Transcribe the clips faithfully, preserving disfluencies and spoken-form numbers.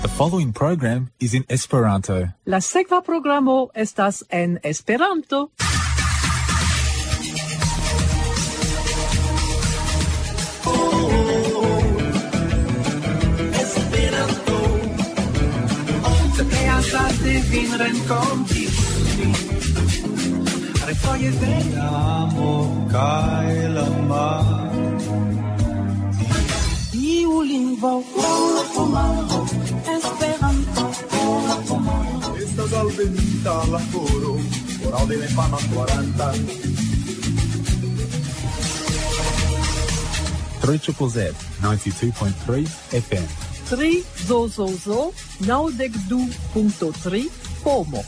The following program is in Esperanto. La sekva programo estas en Esperanto. Esperanto. Tre azarde vin renkonti. Refoje de amo kaj la mar. Iu lingvo, Esperanto. Estas alvenita la koro, koro de la infana kvaranta. Three triple Z, ninety-two point three F M. Tri zo zo zo, naŭdek du punkto tri, pomo.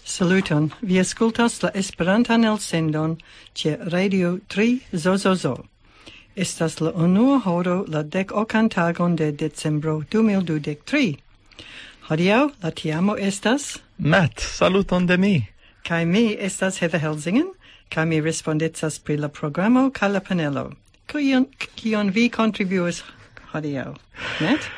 Saluton, vi aŭskultas la Esperantan elsendon ĉe Radio tri zo zo zo. Estas la unua horo la dek okan tagon de decembro du mil dudek tri. Hodiaŭ la tiamo estas Matt, saluton de mi. Kaj mi estas Heather Helsingen, kaj mi respondecas pri la programo kaj la panelo. Kion, kion vi kontribuas hodiaŭ, Matt?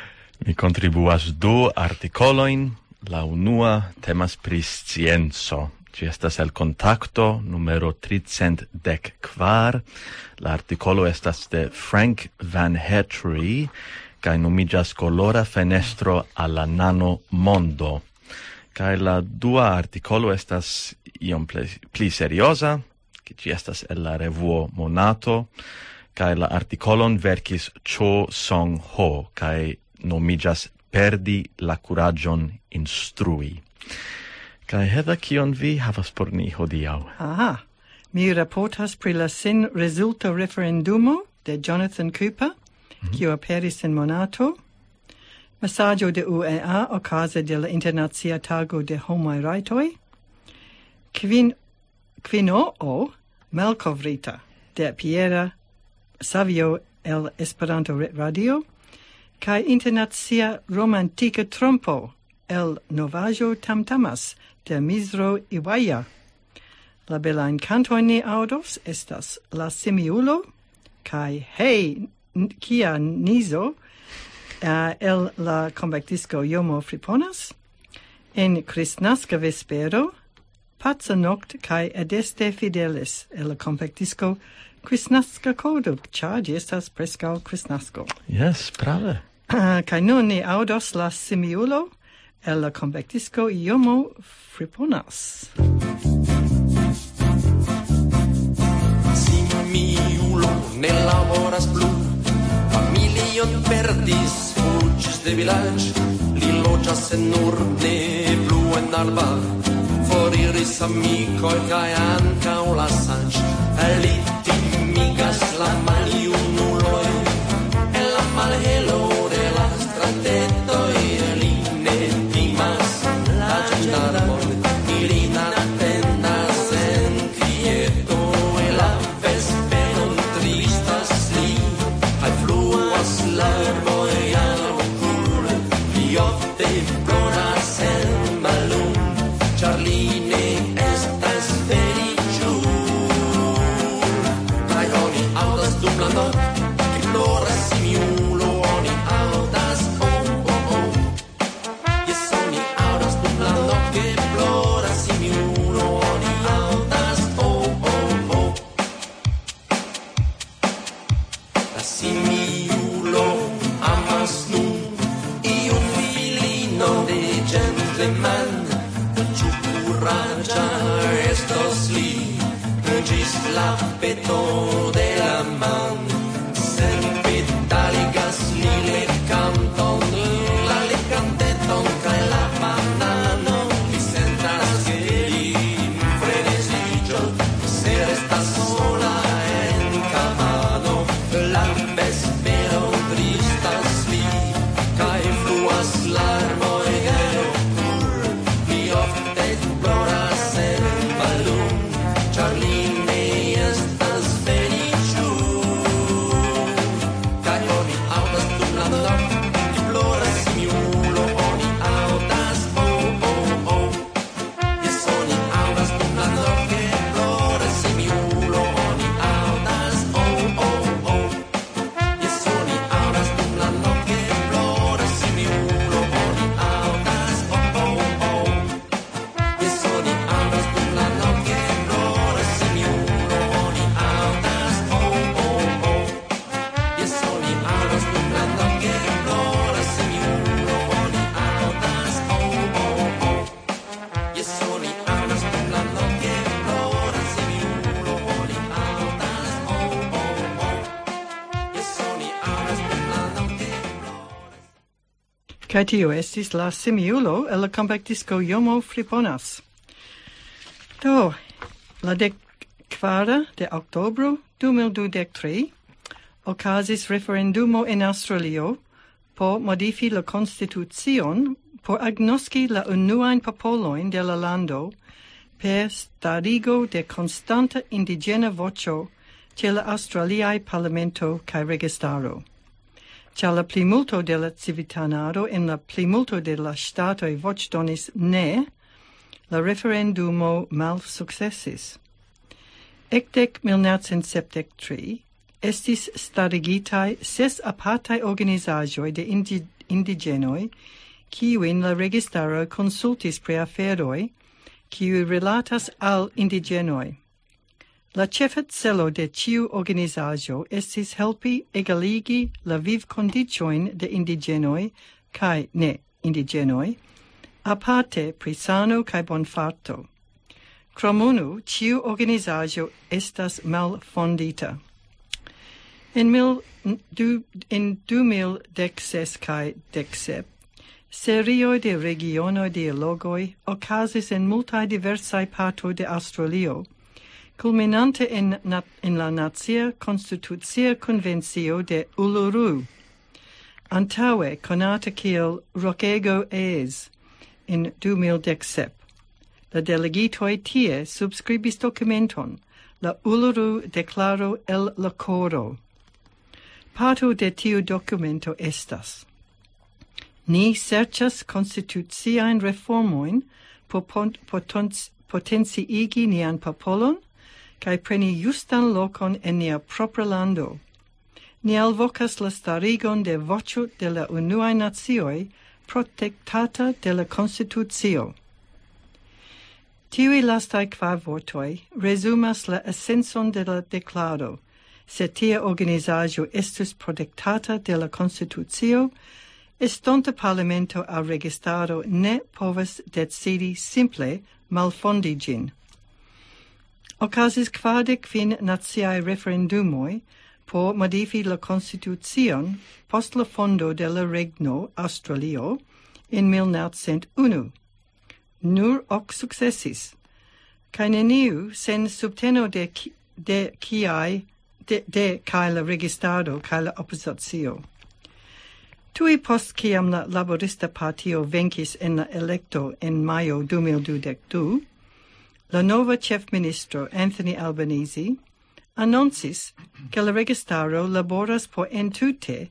Mi kontribuas du artikolojn. La unua temas pri scienco. Ĝi estas el Kontakto numero tricent dek kvar. La artikolo estas de Frank Van Hetry kaj nomiĝas Kolora fenestro al la nano mondo. Kaj la dua artikolo estas iom pli, pli serioza, ke ĝi estas el la revuo Monato, kaj la artikolon verkis Cho Song Ho, kaj nomiĝas Perdi la kuraĝon instrui. Kaj Heather, kion vi havas por ni hodiaŭ? Aha, mi raportas pri la sin rezulta referendumo de Jonathan Cooper, Mhm. kiu aperis en Monato, mesaĝo de U E A okaze de la Internacia Tago de Homaj Rajtoj, kvin, kvinoo malkovrita de Piera Savio el Esperanto Re-, Radio, kaj internacia romantika trompo el novaĵo Tamtamas de Mizro Iwaja. La belajn kantojn ni aŭdos estas La Simiulo kaj Hej, n-, kia nizo, eh, el la kompaktisko Jomo Friponas, en Kristnaska vespero, Paca Nokt kaj Adeste Fidelis el la kompaktisko Kristnaska Kodo, ĉar ĝi estas preskaŭ Kristnasko. Jes, prave. Kaj nun ni aŭdos La Simiulo el la kompaktisko Jomo Friponas. Simiulo ne laboras plu, familion perdis, fuĝis de vilaĝ, li loĝas en urne, plu en arba, foriris amikoj kaj ankaŭ la saĝ. Li timigas la maljunuloj, en la malhelo de la stratetoj li ne timas la ĝendarmon, ilin atendas en kvieto, en la vesperon tristas li, kaj fluas larmoj al okuloj, li ofte ploras en malum, ĉar li ne estas feliĉul. Kaj oni aŭdas dum la nokt, ke ploras simiulo, oni aŭdas, oh, oh, oh. Jes, oni aŭdas dum la nokt, ke ploras simiulo, oni aŭdas, oh, oh, oh. La simiulo amas nun iun filino de gentleman, ĉu kuraĝa estos li, ĝis la peto de la man. Senpetaligas li lekanton, la lekanteton kaj la bananon. Li sentas, ke li freneziĝos, se restas sola en kabano. La vespero tristas li, kaj fluas larmoj el okuloj. Kaj tio estis la simiulo el la kompaktisko Jomo Friponas. Do, la dek kvara de oktobro du mil dudek tri okazis referendumo en Aŭstralio por modifi la konstitucion por agnoski la unuajn popolojn de la lando per starigo de konstanta indiĝena voĉo ĉe la aŭstraliaj parlamento kaj registaro. Ĉar la plimulto de la civitanaro en la plimulto de la ŝtatoj voĉdonis ne, la referendumo malsukcesis. Ekde mil naŭcent sepdek tri estis starigitaj ses apartaj organizaĵoj de indi-, indiĝenoj, kiujn la registaro konsultis pri aferoj, kiuj rilatas al indiĝenoj. La ĉefa celo de ĉiu organizaĵo estis helpi egaligi la vivkondiĉojn de indiĝenoj kaj ne indiĝenoj, aparte pri sano kaj bonfarto. Krom unu, ĉiu organizaĵo estas malfondita. En mil, du, en du mil dek ses kaj dek sep, serioj de regionoj dialogoj okazis en multaj diversaj partoj de Aŭstralio, kulminante en na-, en la Nacia Konstitucia Konvencio de Uluru, antaŭe konata kiel Rokego Eyes, en du mil dek sep. La delegitoj tie subskribis dokumenton, la Uluru Deklaro el la Koro. Parto de tiu dokumento estas: Ni serĉas konstituciajn reformojn por pon-, potonc-, potenciigi nian popolon kaj preni justan lokon en nia propra lando. Ni alvokas la starigon de voĉo de la unuaj nacioj protektata de la Konstitucio. Tiuj lastaj kvar vortoj resumas la esencon de la deklaro. Se tia organizaĵo estus protektata de la Konstitucio, estonta parlamento aŭ registaro ne povas decidi simple malfondi ĝin. Okazis kvardek kvin naciaj referendumoj por modifi la konstitucion post la fondo de la regno Aŭstralio en mil naŭcent unu. Nur ok sukcesis, kaj neniu sen subteno de ki-, de kiaj, de, de kaj la registaro kaj la opozicio. Tuj post kiam la Laborista Partio venkis en la elekto en majo du mil dudek du, la nova ĉefministro Anthony Albanese anoncis, ke la registaro laboras por entute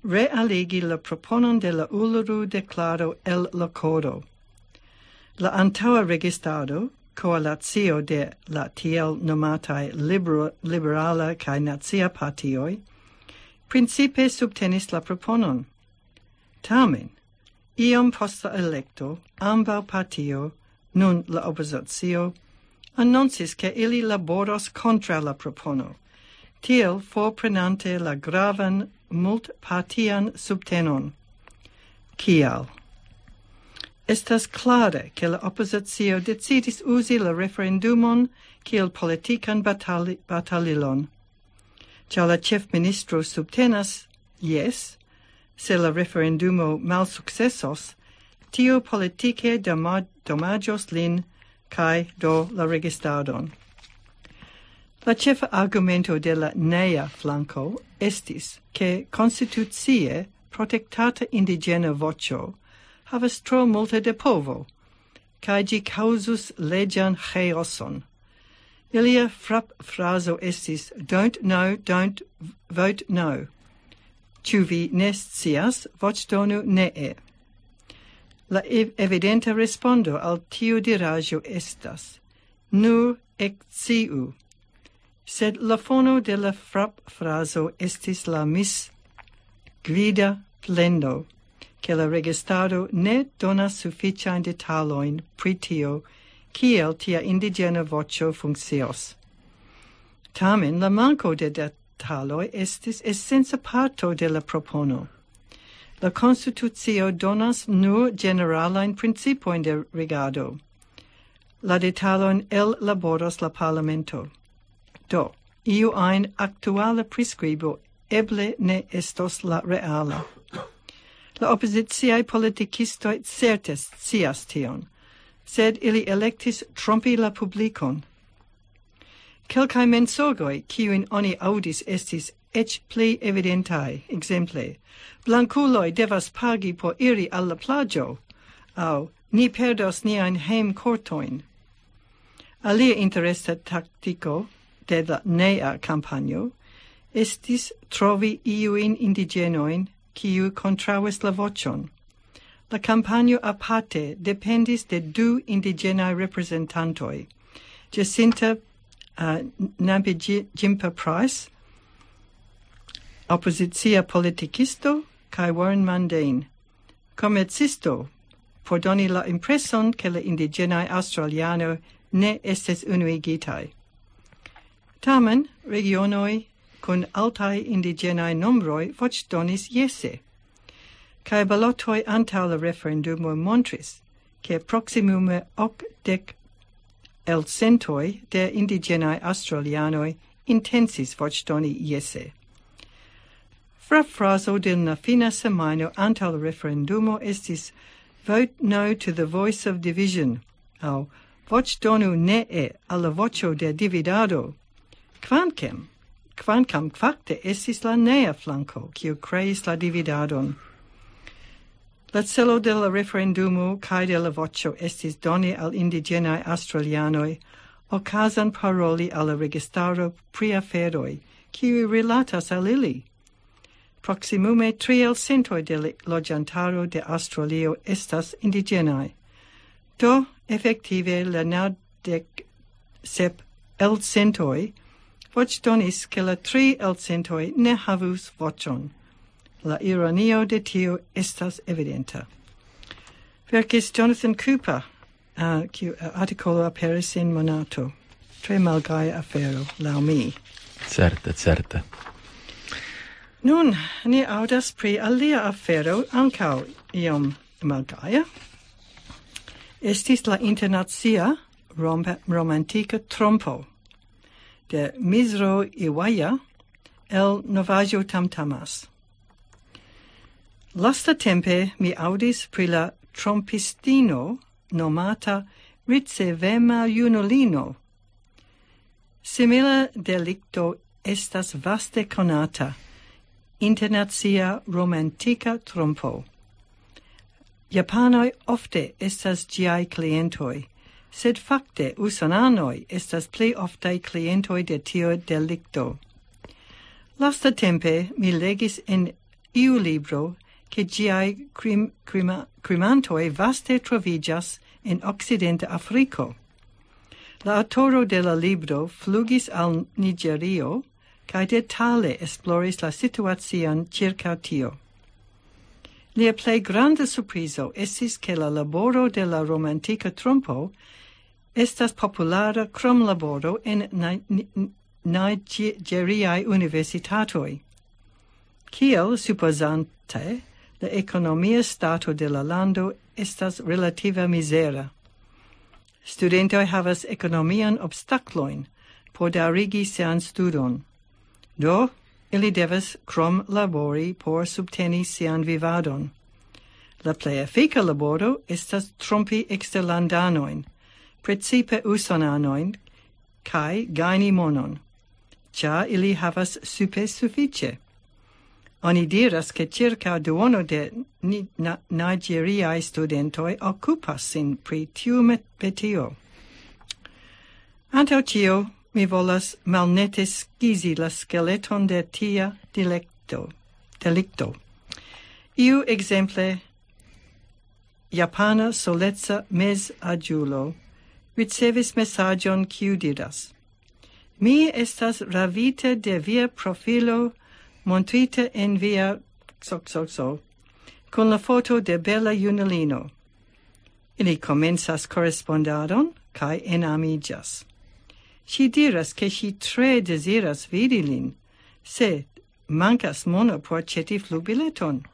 realigi la proponon de la Uluru Deklaro el la Koro. La antaŭa registaro, koalacio de la tiel nomataj libero-, liberala kaj nacia partioj, principe subtenis la proponon. Tamen, iom post la elekto, ambaŭ partio, nun la opozicio, anoncis, ke ili laboros kontraŭ la propono, tiel forprenante la gravan multpartian subtenon. Kial? Estas klare, ke la opozicio decidis uzi la referendumon kiel politikan batali-, batalilon. Ĉar la ĉefministro subtenas, jes, se la referendumo malsukcesos, tio politike dama-, damaĝos lin kaj do la registadon. La ĉefa argumento de la nea flanko estis, ke konstitucie protektata indiĝena voĉo havas tro multe de povo, kaj ĝi kaŭzus leĝan ĥaoson. Ilia frapfrazo estis: "Don't know, don't vote no." Ĉu vi ne scias? Voĉdonu nee. La ev-, evidenta respondo al tiu diraĵo estas: "Nur eksciu." Sed la fono de la frapfrazo estis la misgvida plendo, ke la registaro ne donas sufiĉajn detalojn pri tio, kiel tia indiĝena voĉo funkcios. Tamen la manko de detaloj estis esenca parto de la propono. La konstitucio donas nur ĝeneralajn principojn de regado. La detalojn ellaboros la parlamento. Do, iu ajn aktuala priskribo eble ne estos la reala. La opoziciaj politikistoj certe scias tion, sed ili elektis trompi la publikon. Kelkaj mensogoj, kiujn oni aŭdis, estis eĉ pli evidentaj. Ekzemple, blankuloj devas pagi por iri al la plaĝo, aŭ ni perdos niajn hejmkortojn. Alia interesa taktiko de la nea kampanjo estis trovi iujn indiĝenojn, kiu kontraŭis la voĉon. La kampanjo aparte dependis de du indiĝenaj reprezentantoj, Jacinta uh, Nabijimpa Price, opozicia politikisto, kaj Warren Mundane, komercisto, por doni la impreson, ke la indiĝenaj aŭstralianoj ne estis unuigitaj. Tamen, regionoj kun altaj indiĝenaj nombroj voĉdonis jese, kaj balotoj antaŭ la referendumo montris, ke proksimume okdek elcentoj de indiĝenaj aŭstralianoj intencis voĉdoni jese. Frafrazo de la fina semajno antaŭ la referendumo estis "Vote no to the voice of division", aŭ "Voĉdonu nee al la voĉo de dividado", kvankam, kvankam fakte estis la nea flanko, kiu kreis la dividadon. La celo de la referendumo kaj de la voĉo estis doni al indiĝenaj aŭstralianoj okazon paroli al la registaro pri aferoj, kiuj rilatas al ili. Proksimume tri elcentoj de la loĝantaro de Aŭstralio estas indiĝenaj. Do, efektive, la naŭdek sep elcentoj voĉdonis, ke la tri elcentoj ne havus voĉon. La ironio de tio estas evidenta. Verkis Jonathan Cooper, uh, kiu uh, artikolo aperis en Monato. Tre malgaja afero, laŭ mi. Certe, certe. Nun, ni aŭdas pri alia afero, ankaŭ iom malgaja. Estis la internacia rom- romantika trompo de Mizro Iwaja el Novaĵo Tamtamas. Lastatempe mi aŭdis pri la trompistino nomata ricevema junulino. Simila delikto estas vaste konata, internacia romantika trompo. Japanoj ofte estas ĝiaj klientoj, sed fakte usonanoj estas pli oftaj klientoj de tio delikto. Lastatempe mi legis en iu libro, ke ĝiaj krim, krima, krimantoj vaste troviĝas en okcidenta Afriko. La aŭtoro de la libro flugis al Nigerio kaj detale esploris la situacion ĉirkaŭ tio. Lia plej granda surprizo estis, ke la laboro de la romantika trompo estas populara krom laboro en Ni- Ni- Nigeriaj universitatoj. Kiel supozante, la ekonomia stato de la lando estas relativa mizera. Studentoj havas ekonomian obstaklojn por daŭrigi sian studon. Do, ili devas krom labori por subteni sian vivadon. La plej efika laboro estas trompi eksterlandanojn, precipe usonanojn, kaj gajni monon, ĉar ili havas supe sufiĉe. Oni diras, ke ĉirkaŭ duono de ni- na- nigeriaj studentoj okupas sin pri tiu met- metio. Antaŭ ĉio, mi volas malnete skizi la skeleton de tia dilekto, delikto. Iu ekzemple, japana soleca mezaĝulo ricevis mesaĝon, kiu diras: "Mi estas ravita de via profilo montrita en via xxxo kun la foto de bela junulino." Ili komencas korespondadon kaj enamiĝas. Ŝi diras, ke ŝi tre deziras vidi lin, se mankas mono por aĉeti flugbileton.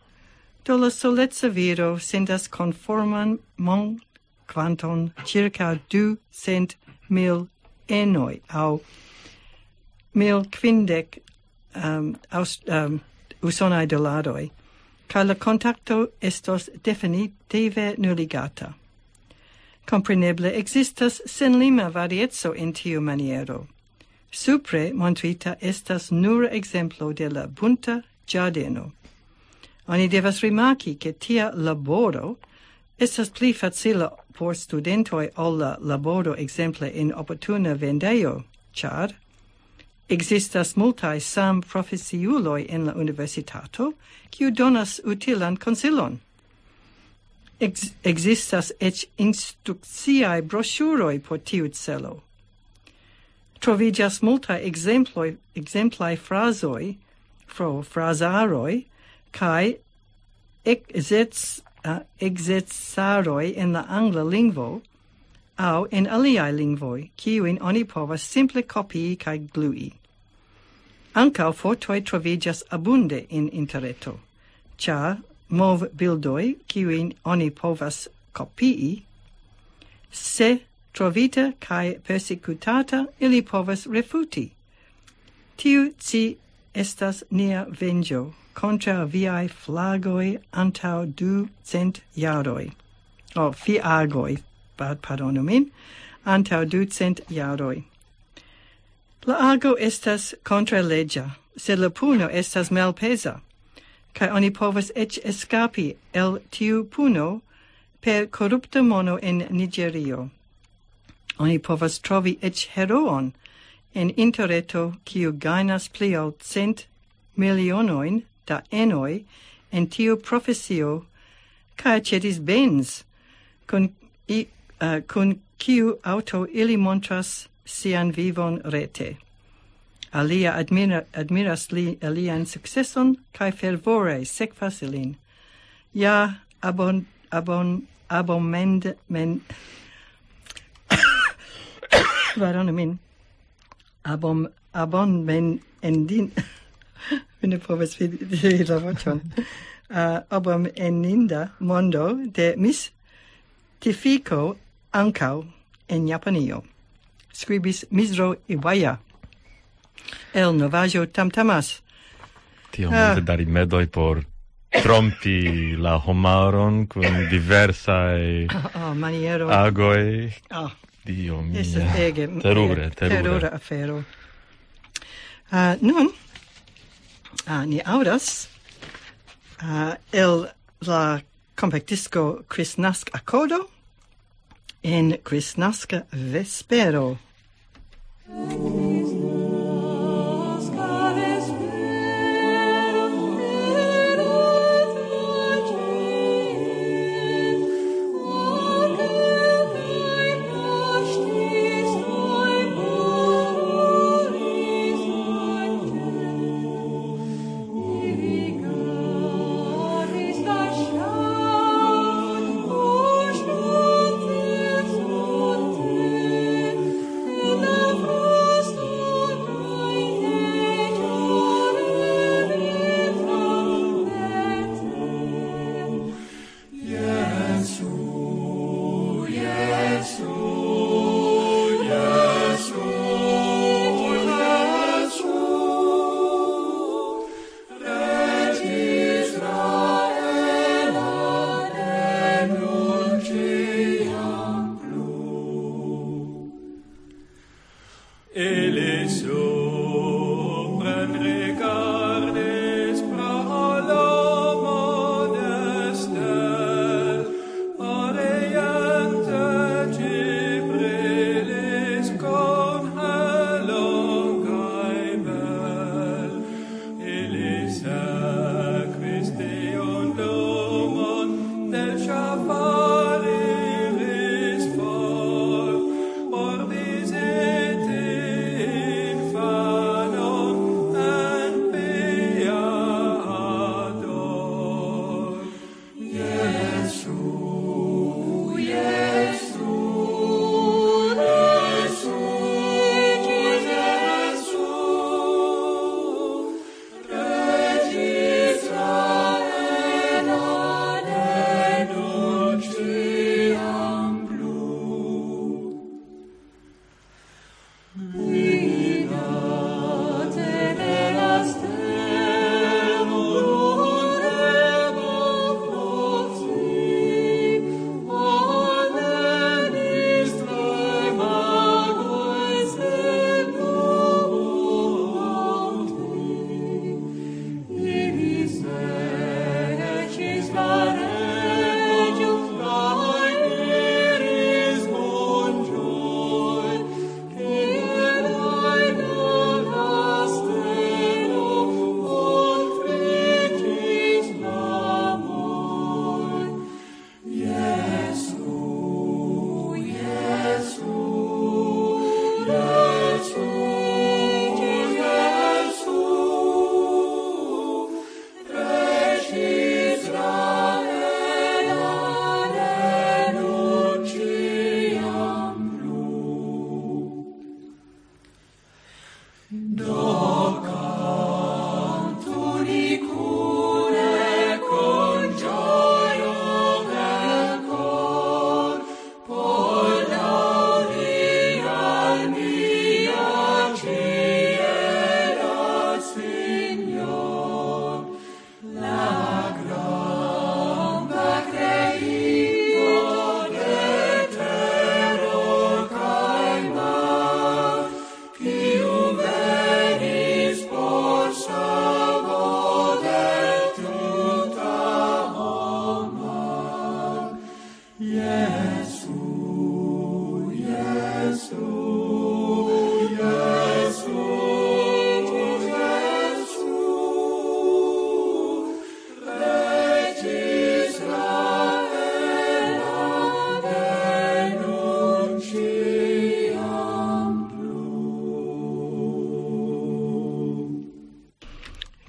Do la soleca viro sendas konforman mon- kvanton ĉirkaŭ ducent mil enoj aŭ mil kvindek um, aus, um, usonaj dolaroj. kaj la kontakto estos definitive nuligata. Kompreneble ekzistas senlima varieco en tiu maniero. Supre montrita estas nur ekzemplo de la bunta ĝardeno. Oni devas rimarki, ke tia laboro estas pli facila por studentoj ol la laboro ekzemple en oportuna vendejo, ĉar ekzistas multaj samprofesiuloj en la universitato, kiu donas utilan konsilon. Ex-, ekzistas eĉ instrukciaj broŝuroj por tiu celo. Troviĝas multaj ekzemploj, ekzemplaj frazoj, fro-, frazaroj, kaj ekzec-, a, ekzercaroj en la angla lingvo aŭ en aliaj lingvoj, kiujn oni povas simple kopii kaj glui. Ankaŭ fotoj troviĝas abunde en interreto, ĉar movbildoj, kiujn oni povas kopii, se trovita kaj persekutata, ili povas refuti. Tiu ci estas nia venĝo kontraŭ viaj flagoj antaŭ ducent jaroj. O, fiagoj, pa-, pardonu min, antaŭ ducent jaroj. La ago estas kontraleĝa, sed la puno estas malpeza, kaj oni povas eĉ eskapi el tiu puno per korupta mono en Nigerio. Oni povas trovi eĉ heroon en interreto, kiu gajnas pli ol cent milionojn da enoj en tiu profesio, kaj aĉetis Benz, kun i-, eh, kun kiu aŭto ili montras sian vivon rete. Alia admira-, admiras li, lian sukceson kaj fervore sekvas ilin. Ja, abon-, abon-, abomend-, men-, pardonu min. Abom-, abon-, men-, endin-, mi ne povas vidi, vidi la voĉon. Ah, abomeninda mondo de mistifiko ankaŭ en Japanio. Skribis Mizro Iwaya el novaĵo Tamtamas. Tiom Ah. multe da rimedoj por trompi la homaron kun diversaj Oh, maniero. agoj. Oh, Dio mia. Estas ege, Terure, ege terure. terura afero. Ah, nun, ah, ni aŭdas, ah, el la kompaktisko Kristnask Akodo en Kristnaska Vespero.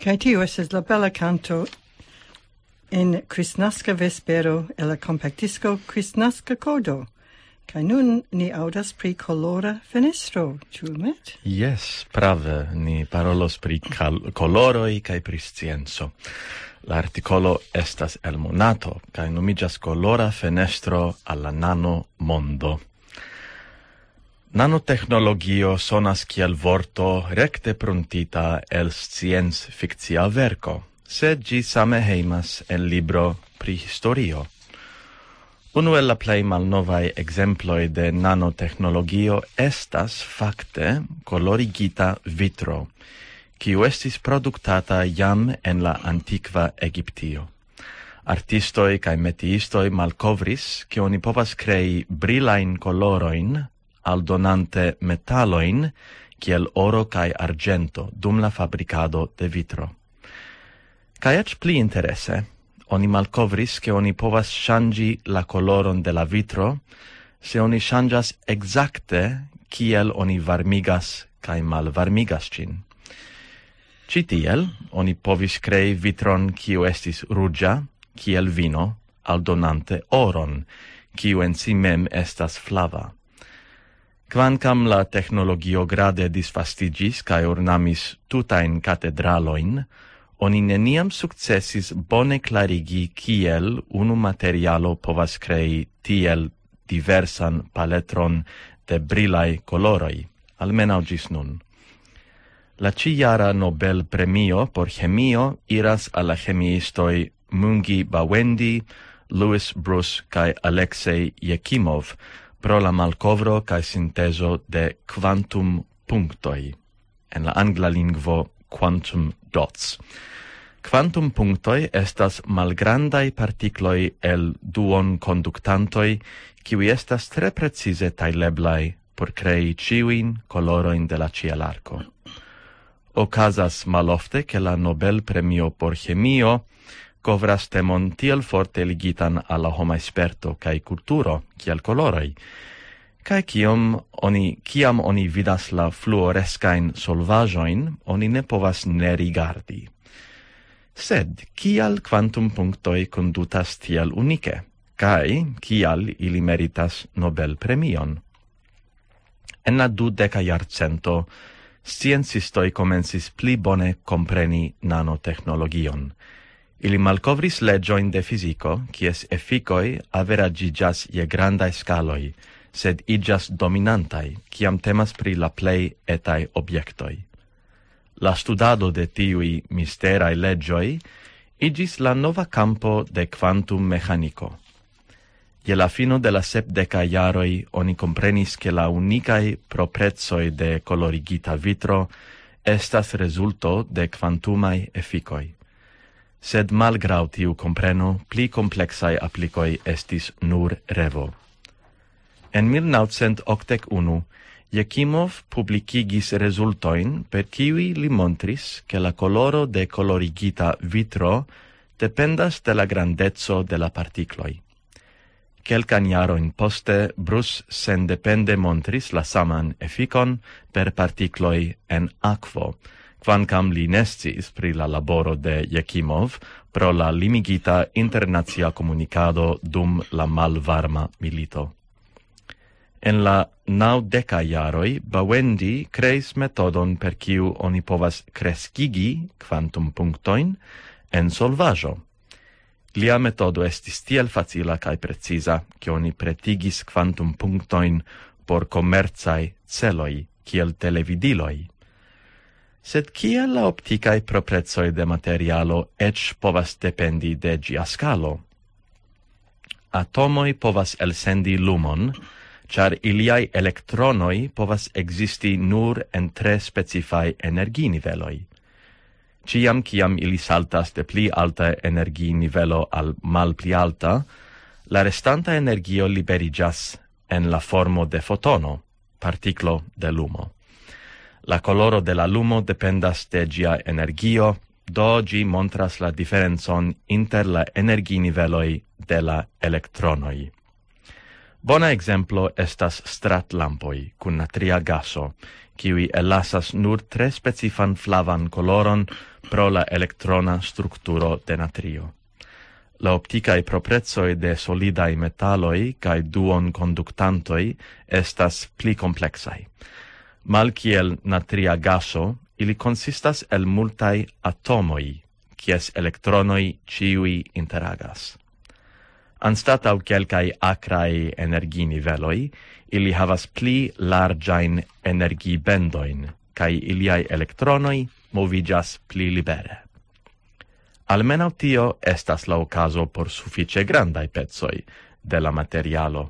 Kaj tio estas la bela kanto en Kristnaska vespero el la kompaktdisko Kristnaska Kodo. Kaj nun ni aŭdas pri kolora fenestro, ĉu met? Jes, prave, ni parolos pri kal- koloroj kaj pri scienco. La artikolo estas el Monato, kaj nomiĝas Kolora fenestro al la nano mondo. Nanotehnologio sonas kiel vorto rekte pruntita el scienc-fikcia verko, sed ĝi same hejmas en libro pri historio. Unu el la plej malnovaj ekzemploj de nanotehnologio estas fakte kolorigita vitro, kiu estis produktata jam en la antikva Egiptio. Artistoj kaj metiistoj malkovris, ke oni povas krei brilajn kolorojn, aldonante metalojn, kiel oro kaj arĝento, dum la fabrikado de vitro. Kaj eĉ pli interese, oni malkovris, ke oni povas ŝanĝi la koloron de la vitro, se oni ŝanĝas ekzakte kiel oni varmigas kaj malvarmigas ĝin. Ĉi tiel oni povis krei vitron, kiu estis ruĝa, kiel vino, aldonante oron, kiu en si mem estas flava. Kvankam la tehnologio grade disvastiĝis kaj ornamis tutajn katedralojn, oni neniam sukcesis bone klarigi, kiel unu materialo povas krei tiel diversan paletron de brilaj koloroj, almenaŭ ĝis nun. La ĉijara Nobel-premio por ĥemio iras al la ĥemiistoj Mungi Bawendi, Louis Bruce kaj Alexei Jekimov pro la malkovro kaj sintezo de kvantum-punktoj, en la angla lingvo quantum dots. Kvantum-punktoj estas malgrandaj partikloj el duonkonduktantoj, kiuj estas tre precize tajleblaj por krei ĉiujn kolorojn de la ĉielarko. Okazas malofte, ke la Nobel-premio por ŝemio kovras temon tiel forte ligitan al la homa sperto kaj kulturo, kiel koloroj. Kaj kiam oni, kiam oni vidas la fluoreskajn solvaĵojn, oni ne povas ne rigardi. Sed kial kvantum-punktoj kondutas tiel unike? Kaj kial ili meritas Nobel-premion? En la dudeka jarcento, sciencistoj komencis pli bone kompreni nanotehnologion. Ili malkovris leĝojn de fiziko, kies efikoj averaĝiĝas je grandaj skaloj, sed iĝas dominantaj, kiam temas pri la plej etaj objektoj. La studado de tiuj misteraj leĝoj iĝis la nova kampo de kvantum-meĥaniko. Je la fino de la sepdekaj jaroj oni komprenis, ke la unikaj proprecoj de kolorigita vitro estas rezulto de kvantumaj efikoj. Sed malgraŭ tiu kompreno, pli kompleksaj aplikoj estis nur revo. En mil naŭcent okdek unu, Jekimov publikigis rezultojn, per kiuj li montris, ke la koloro de kolorigita vitro dependas de la grandeco de la partikloj. Kelkajn jarojn poste, Bruce sendepende montris la saman efikon per partikloj en akvo, kvankam li ne sciis pri la laboro de Jekimov pro la limigita internacia komunikado dum la malvarma milito. En la naŭdekaj jaroj Bawendi kreis metodon, per kiu oni povas kreskigi kvantum-punktojn en solvaĵo. Lia metodo estis tiel facila kaj preciza, ke oni pretigis kvantum-punktojn por komercaj celoj, kiel televidiloj. Sed kiel la optikaj proprecoj de materialo eĉ povas dependi de ĝia skalo? Atomoj povas elsendi lumon, ĉar iliaj elektronoj povas ekzisti nur en tre specifaj energiniveloj. Ĉiam kiam ili saltas de pli alta energiinivelo al malpli alta, la restanta energio liberiĝas en la formo de fotono, partiklo de lumo. La koloro de la lumo dependas de ĝia energio, do ĝi montras la diferencon inter la energiniveloj de la elektronoj. Bona ekzemplo estas stratlampoj kun natria gaso, kiuj ellasas nur tre specifan flavan koloron pro la elektrona strukturo de natrio. La optikaj proprecoj de solidaj metaloj kaj duonkonduktantoj estas pli kompleksaj. Malkiel natria gaso, ili konsistas el multaj atomoj, kies elektronoj ĉiuj interagas. Anstataŭ kelkaj akraj energiniveloj, ili havas pli larĝajn energibendojn, kaj iliaj elektronoj moviĝas pli libere. Almenaŭ tio estas la okazo por sufiĉe grandaj pecoj de la materialo.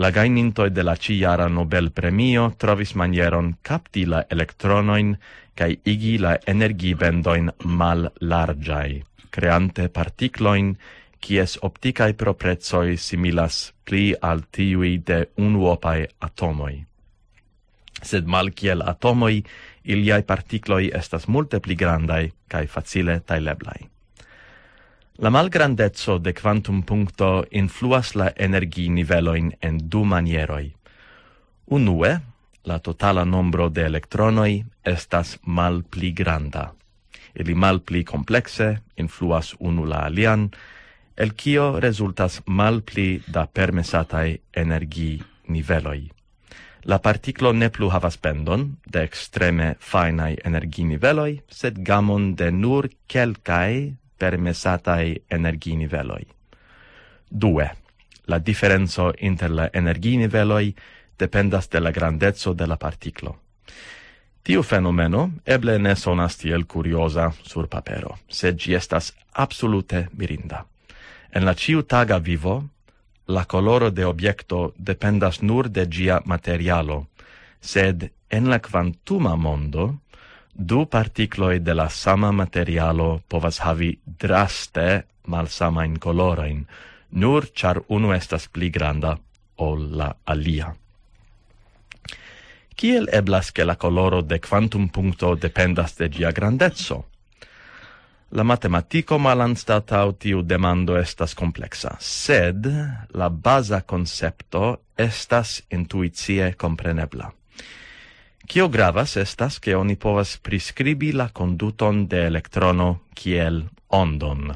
La gajnintoj de la ĉijara Nobel-premio trovis manieron kapti la elektronojn kaj igi la energibendojn mallarĝaj, kreante partiklojn, kies optikaj proprecoj similas pli al tiuj de unuopaj atomoj. Sed malkiel atomoj, iliaj partikloj estas multe pli grandaj kaj facile tajleblaj. La malgrandeco de kvantumpunkto influas la energinivelojn en du manieroj. Unue, la totala nombro de elektronoj estas malpli granda. Ili malpli komplekse influas unu la alian, el kio rezultas malpli da permesataj energiniveloj. La partiklo ne plu havas bendon de ekstreme fajnaj energiniveloj, sed gamon de nur kelkaj permesataj energiniveloj. Due, la diferenco inter la energiniveloj dependas de la grandeco de la partiklo. Tiu fenomeno eble ne sonas tiel kurioza sur papero, sed ĝi estas absolute mirinda. En la ĉiutaga vivo, la koloro de objekto dependas nur de ĝia materialo, sed en la kvantuma mondo, du partikloj de la sama materialo povas havi draste malsamajn kolorojn, nur ĉar unu estas pli granda ol la alia. Kiel eblas, ke la koloro de kvantumpunkto dependas de ĝia grandeco? La matematiko malanstataŭ tiu demando estas kompleksa, sed la baza koncepto estas intuicie komprenebla. Kio gravas estas, ke oni povas priskribi la konduton de elektrono kiel ondon.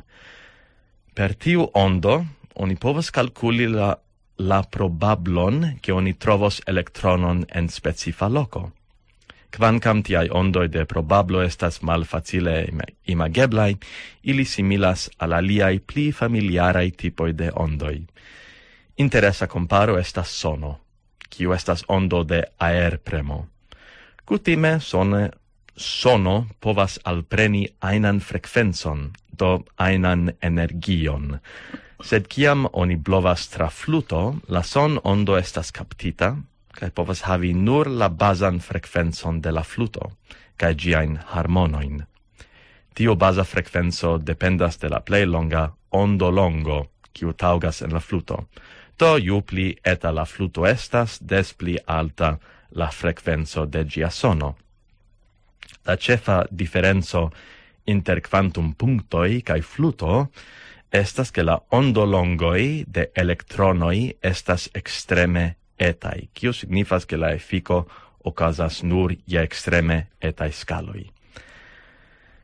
Per tiu ondo oni povas kalkuli la, la probablon, ke oni trovos elektronon en specifa loko. Kvankam tiaj ondoj de probablo estas malfacile ima-, imageblaj, ili similas al aliaj pli familiaraj tipoj de ondoj. Interesa komparo estas sono, kiu estas ondo de aerpremo. Kutime sone, sono povas alpreni ajnan frekvencon, do ajnan energion. Sed kiam oni blovas tra fluto, la son-ondo estas kaptita, kaj povas havi nur la bazan frekvencon de la fluto, kaj ĝiajn harmonojn. Tiu baza frekvenco dependas de la plej longa ondolongo, kiu taŭgas en la fluto. Do ju pli eta la fluto estas, des pli alta la frekvenco de ĝia sono. La ĉefa diferenco inter kvantumpunktoj kaj fluto estas, ke la ondolongoj de elektronoj estas ekstreme etaj, kio signifas, ke la efiko okazas nur je ekstreme etaj skaloj.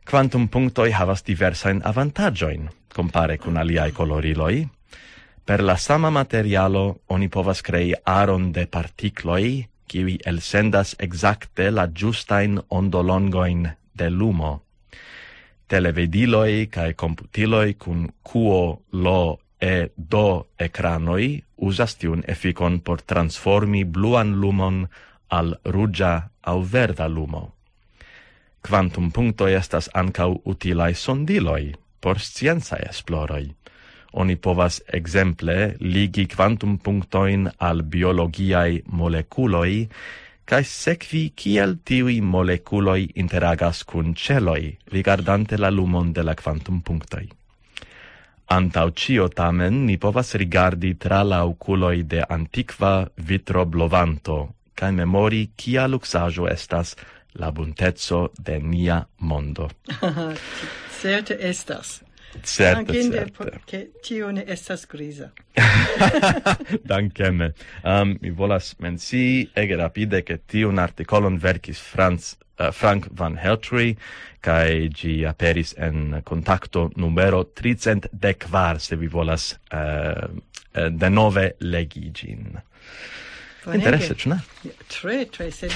Kvantumpunktoj havas diversajn avantaĝojn kompare kun aliaj koloriloj. Per la sama materialo oni povas krei aron de partikloj, kiuj elsendas ekzakte la ĝustajn ondolongojn de lumo. Televidiloj kaj komputiloj kun Q L E D ekranoj uzas tiun efikon por transformi bluan lumon al ruĝa aŭ verda lumo. Kvantumpunktoj estas ankaŭ utilaj sondiloj por sciencaj esploroj. Oni povas ekzemple ligi kvantumpunktojn al biologiaj molekuloj kaj sekvi, kiel tiuj molekuloj interagas kun ĉeloj, rigardante la lumon de la kvantumpunktoj. Antaŭ ĉio tamen ni povas rigardi tra la okuloj de antikva vitroblovanto kaj memori, kia luksaĵo estas la bunteco de nia mondo. Certe estas. Certe, Dankinde, certe. Ke tio ne estas griza. Dankeme. Um, mi volas mencii ege rapide, ke tiun artikolon verkis Franz, uh, Frank van Heltry, kaj ĝi aperis en Kontakto numero tricent dek kvar, se vi volas uh, denove legi ĝin. Interese, ĉu ne? Tre, tre, sed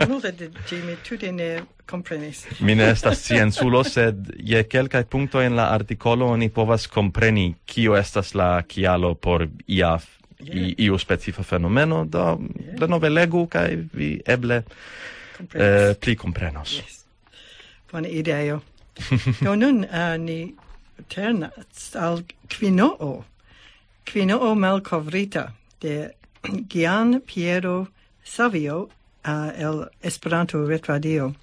multe de ĝi mi tute ne komprenis. Mi ne estas scienculo, sed je kelkaj punktoj en la artikolo oni povas kompreni, kio estas la kialo por ia, i, iu specifa fenomeno, do denove legu kaj vi eble eh, pli komprenos. Bona ideo. Do nun uh, ni ternas al Quinoo. Quinoo malkovrita de Gian Piero Savio uh, el Esperanto Retradio.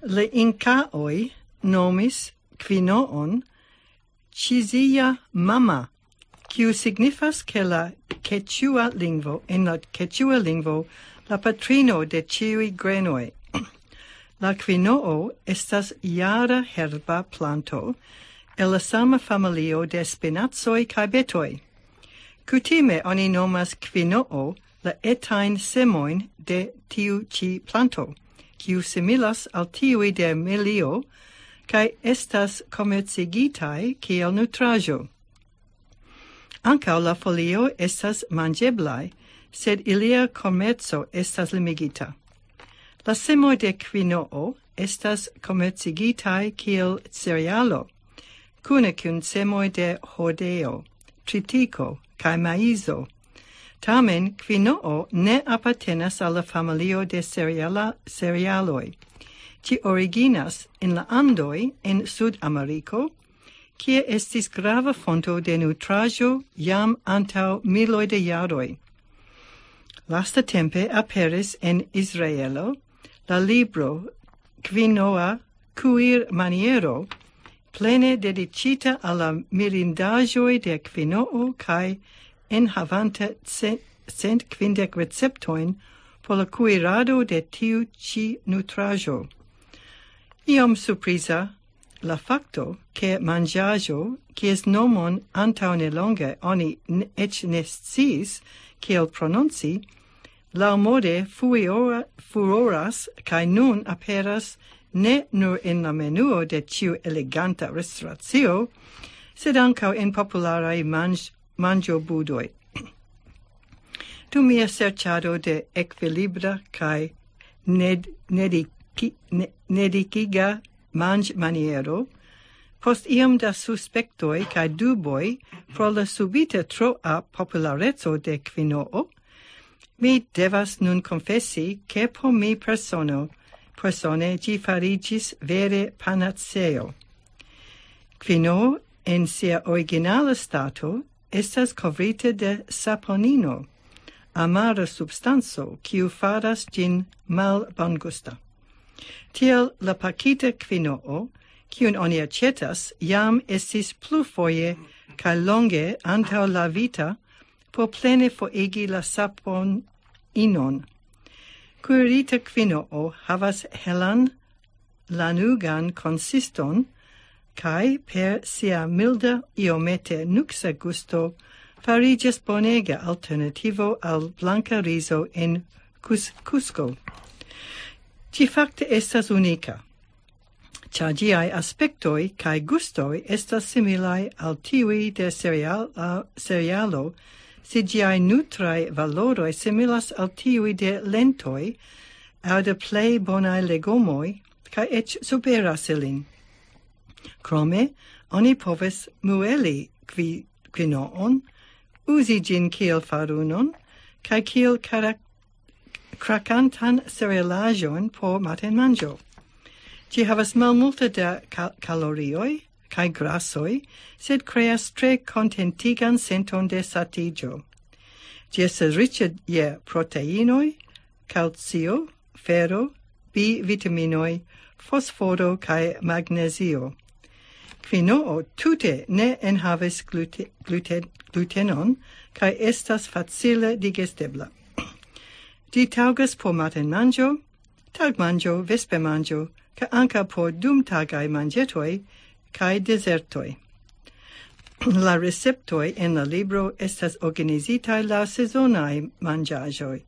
La Inkaoj nomis Quinoon Chizia Mama, kiu signifas ke la quechua lingvo, en la quechua lingvo, la patrino de ĉiuj grenoj. La quinoo estas jara herba planto el la sama familio de spinacoj kaj betoj. Kutime oni nomas quinoo la etajn semojn de tiu ĉi planto, kiu similas al tiuj de milio, kaj estas komercigitaj kiel nutraĵo. Ankaŭ la folio estas manĝeblaj, sed ilia komerco estas limigita. La semoj de quinoo estas komercigitaj kiel cerealo, kune kun semoj de hordeo, tritiko kaj maizo. Tamen quinoo ne apartenas al la familio de cereala, cerealoj. Ĝi originas en la Andoj en Sudameriko, kie estis grava fonto de nutraĵo jam antaŭ miloj de jaroj. Lastatempe aperis en Israelo la libro Quinoa Kuir Maniero, plene dediĉita al la mirindaĵoj de quinoo kaj enhavanta ce- cent kvindek receptojn por la kuirado de tiu ĉi nutraĵo. Iom surpriza la fakto, ke manĝaĵo, kies nomon antaŭ nelonge oni n- eĉ ne sciis kiel prononci, laŭmode fuiora- furoras kaj nun aperas ne nur en la menuo de ĉiu eleganta restoracio, sed ankaŭ en popularaj manĝ- manĝobudoj. Dum mia serĉado de ekvilibra kaj ned- nediki- ne- nedikiga manĝmaniero, post iom da suspektoj kaj duboj pro la subite troa populareco de quinoo, mi devas nun konfesi, ke por mi persono, persone ĝi fariĝis vere panaceo. Quinoo en sia originala stato estas kovrita de saponino, amara substanco, kiu faras ĝin malbongusta. Tiel la pakita quinoo, kiun oni aĉetas, jam estis plurfoje kaj longe antaŭ lavita por plene forigi la saponinon. Kuirita quinoo havas helan lanugan konsiston, kaj per sia milda, iomete nuksa gusto fariĝas bonega alternativo al blanka rizo en Cus- Cusco. Ĝi fakte estas unika, ĉar ĝiaj aspektoj kaj gustoj estas similaj al tiuj de cereal- cerealo, se ĝiaj nutraj valoroj similas al tiuj de lentoj aŭ de plej bonaj legomoj, kaj eĉ superas ilin. Krome, oni povas mueli qui- quinoon, uzi ĝin kiel farunon, kaj kiel karak- krakantan cerealaĵon por matenmanĝo. Ĝi havas malmulte da ka- kalorioj kaj grasoj, sed kreas tre kontentigan senton de satiĝo. Ĝi estas riĉa je proteinoj, kalcio, fero, B-vitaminoj, fosforo kaj magnezio. Quinoo tute ne enhavas glute- glute- glutenon kaj estas facile digestebla. Ĝi taŭgas por matenmanĝo, tagmanĝo, vespermanĝo, kaj ankaŭ por dumtagaj manĝetoj, kaj dezertoj. La receptoj en la libro estas organizitaj laŭ sezonaj manĝaĵoj,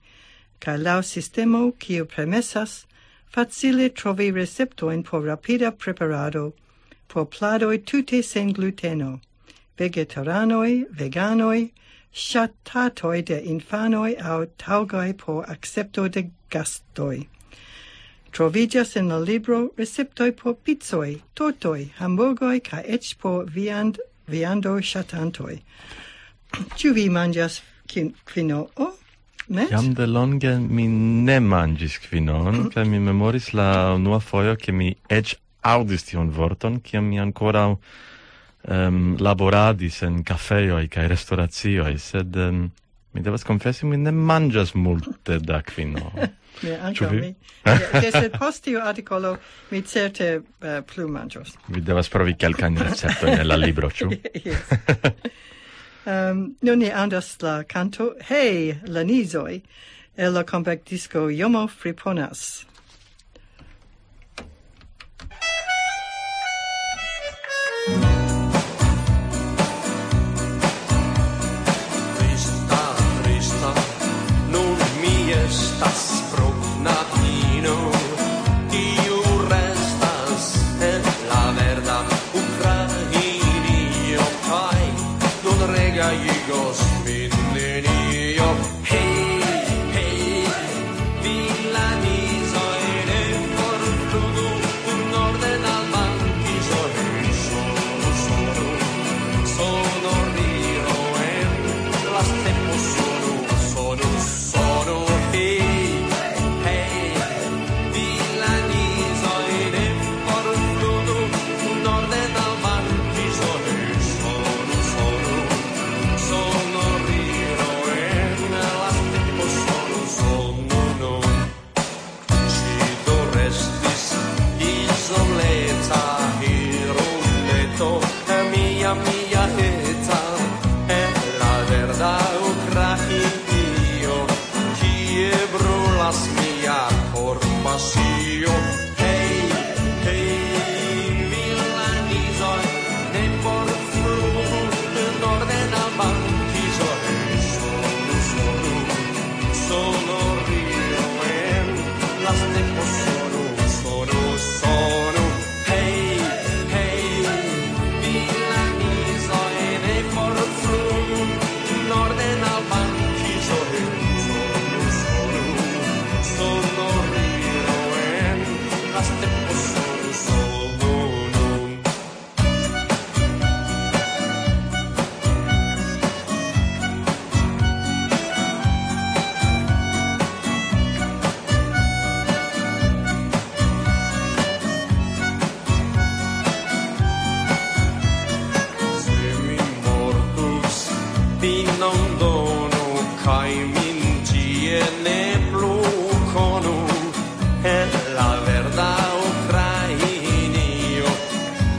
kaj laŭ sistemo, kiu permesas facile trovi receptojn por rapida preparado por pladoj tute sen gluteno, vegetaranoj, veganoj, ŝatatoj de infanoj aŭ taŭgaj por akcepto de gastoj. Troviĝas en la libro receptoj por picoj, tortoj, hamburgoj kaj eĉ por viand-, viando ŝatantoj. Ĉu vi manĝas kin-, quinoa? Met? Jam de longe mi ne manĝis quinoon, kaj mi memoris la unua fojo, ke mi eĉ aŭdis tiun vorton, kiam mi ankoraŭ, em, laboradis en kafejoj kaj restoracioj, sed, em, mi devas konfesi, mi ne manĝas multe da quinoa. Ne, ankaŭ vi? Mi. Ja, ja, sed post tiu artikolo mi certe, eh, plu manĝos. Mi devas provi kelkajn receptojn en la libro, ĉu? Yes. Em, nun ni aŭdas la kanto Hej, la nizoj, el la kompaktdisko Jomo Friponas. Trista, trista, nun mi estas pro knabino, kiu restas en la verda Ukrainio, kaj nun regajigos min nenio. Hej, hej, vilanizoj, ne forflugu norden al bankizoj. Sonu, sonu, sonorilo en la stepo, sonu, sonu, sonu. Hej, hej, vilanizoj, ne forflugu norden al bankizoj. Sonu, sonu, sonorilo en la stepo, sonu, sonu, no. Ŝi do restis izoleta irumeto, mia, mia eta, en la verda Ukrainio, kie brulas mia korpasio. Hej, hej, vilanizoj, ne forflugu norden al bankizoj. Sonu, sonu, sonorilo en la stepo, sonu, sonu, sonu. Hej, hej, vilanizoj, ne forflugu norden al bankizoj. Sonu, sonu, sonorilo en la stepo, sonu, sonu. Se mi mortus, finon donu, kaj min tie ne plu konu, en la verda Ukrainio,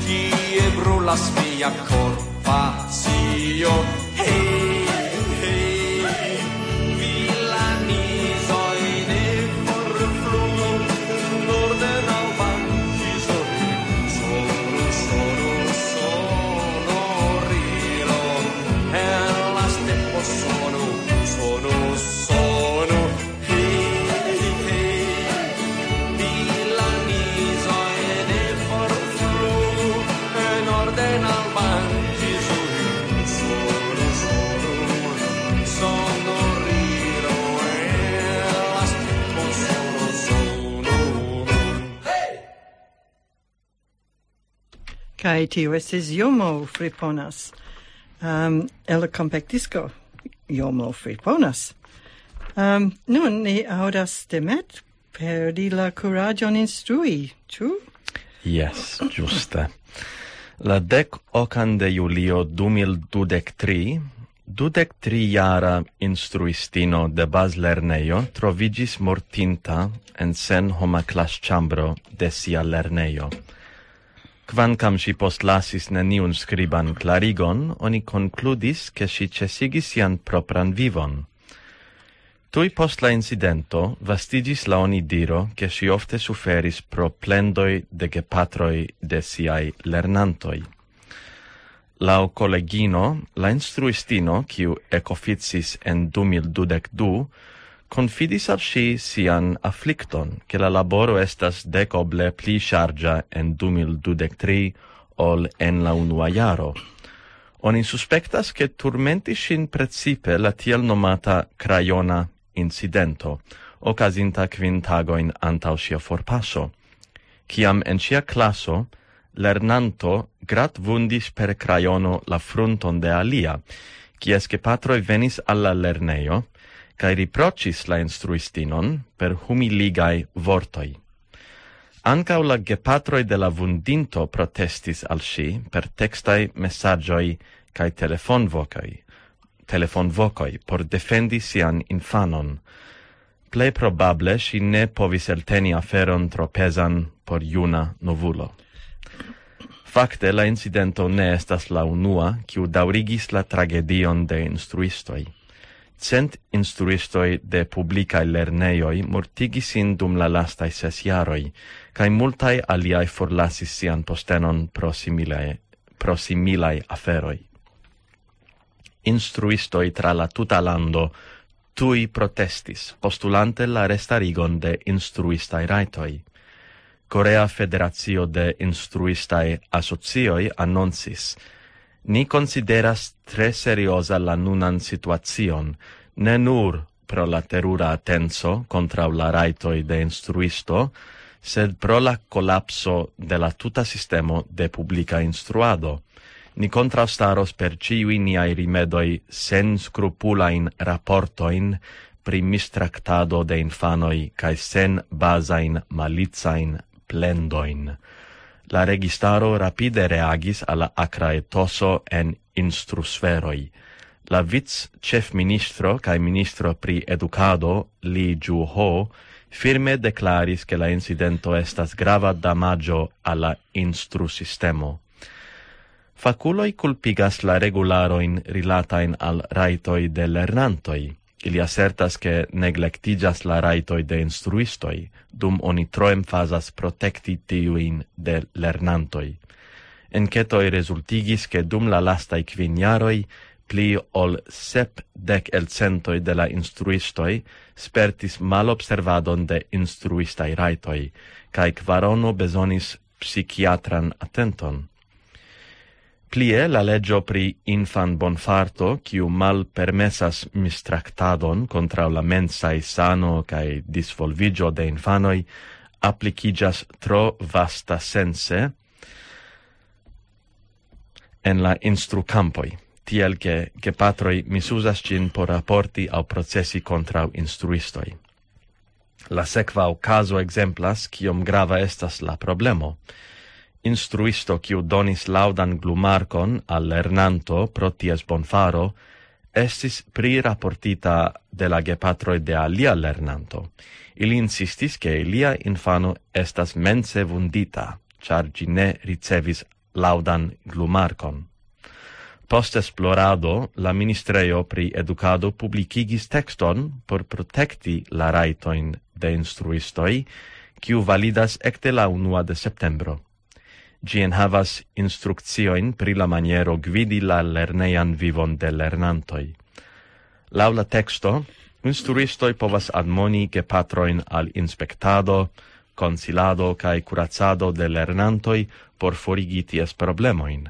kie brulas mia korpasio. Hej, hej, vilanizoj, ne forflugu norden al bankizoj. Sonu, sonu, sonorilo en la stepo, sonu, sonu, sonu. Hej, hej, vilanizoj, ne forflugu norden al bankizoj. Sonu, sonu, sonorilo en la stepo, sonu, sonu. Kaj tio estis Jomo Friponas, um, el la kompaktdisko Jomo Friponas. Um, nun ni aŭdas Demet perdi la kuraĝon instrui, ĉu? Jes, ĝuste. La dek okan de julio du mil dudek tri, dudek tri jara instruistino de bazlernejo troviĝis mortinta en senhoma klasĉambro de sia lernejo. Kvankam ŝi postlasis neniun skriban klarigon, oni konkludis, ke ŝi ĉesigis sian propran vivon. Tuj post la incidento vastiĝis la onidiro, ke ŝi ofte suferis pro plendoj de gepatroj de siaj lernantoj. Laŭ kolegino, la instruistino, kiu ekoficis en du mil dudek du, konfidis al ŝi sian aflikton, ke la laboro estas dekoble pli ŝarĝa en du mil dudek tri ol en la unua jaro. Oni suspektas, ke turmentis ŝin precipe la tiel nomata krajona incidento, okazinta kvin tagojn antaŭ ŝia forpaso, kiam en ŝia klaso lernanto gratvundis per krajono la frunton de alia, kies gepatroj venis al la lernejo kaj riproĉis la instruistinon per humiligaj vortoj. Ankaŭ la gepatroj de la vundinto protestis al ŝi per tekstaj mesaĝoj kaj telefonvokoj, telefonvokoj por defendi sian infanon. Plej probable ŝi ne povis elteni aferon tro pezan por juna novulo. Fakte, la incidento ne estas la unua, kiu daŭrigis la tragedion de instruistoj. Cent instruistoj de publikaj lernejoj mortigis sin dum la lastaj ses jaroj, kaj multaj aliaj forlasis sian postenon pro similaj, pro similaj aferoj. Instruistoj tra la tuta lando tuj protestis, postulante la restarigon de instruistaj rajtoj. Korea Federacio de Instruistaj Asocioj anoncis: "Ni konsideras tre serioza la nunan situacion, ne nur pro la terura atenco kontraŭ la rajtoj de instruisto, sed pro la kolapso de la tuta sistemo de publika instruado. Ni kontraŭstaros per ĉiuj niaj rimedoj senskrupulajn raportojn pri mistraktado de infanoj kaj senbazajn malicajn plendojn." La registaro rapide reagis al la akra etoso en instrusferoj. La vic-ĉefministro kaj ministro pri edukado, Li Ju-ho, firme deklaris, ke la incidento estas grava damaĝo al la instrusistemo. Fakuloj kulpigas la regularojn rilatajn al rajtoj de lernantoj. Ili asertas, ke neglektiĝas la rajtoj de instruistoj, dum oni tro emfazas protekti tiujn de lernantoj. Enketoj rezultigis, ke dum la lastaj kvin jaroj pli ol sepdek elcentoj de la instruistoj spertis malobservadon de instruistaj rajtoj, kaj kvarono bezonis psikiatran atenton. Plie, la leĝo pri infanbonfarto, kiu malpermesas mistraktadon kontraŭ la mensaj sano kaj disvolviĝo de infanoj, aplikiĝas tro vasta sense en la instrukampoj, tiel ke gepatroj misuzas ĝin por raporti aŭ procesi kontraŭ instruistoj. La sekva okazo ekzemplas, kiom grava estas la problemo. Instruisto, kiu donis laŭdan glumarkon al lernanto pro ties bonfaro, estis priraportita de la gepatroj de alia lernanto. Ili insistis, ke ilia infano estas mence vundita, ĉar ĝi ne ricevis laŭdan glumarkon. Post esplorado, la ministrejo pri edukado publikigis tekston por protekti la rajtojn de instruistoj, kiu validas ekde la unua de septembro. Ĝi enhavas instrukciojn pri la maniero gvidi la lernejan vivon de lernantoj. Laŭ la teksto, instruistoj povas admoni gepatrojn al inspektado, konsilado kaj kuracado de lernantoj por forigi ties problemojn.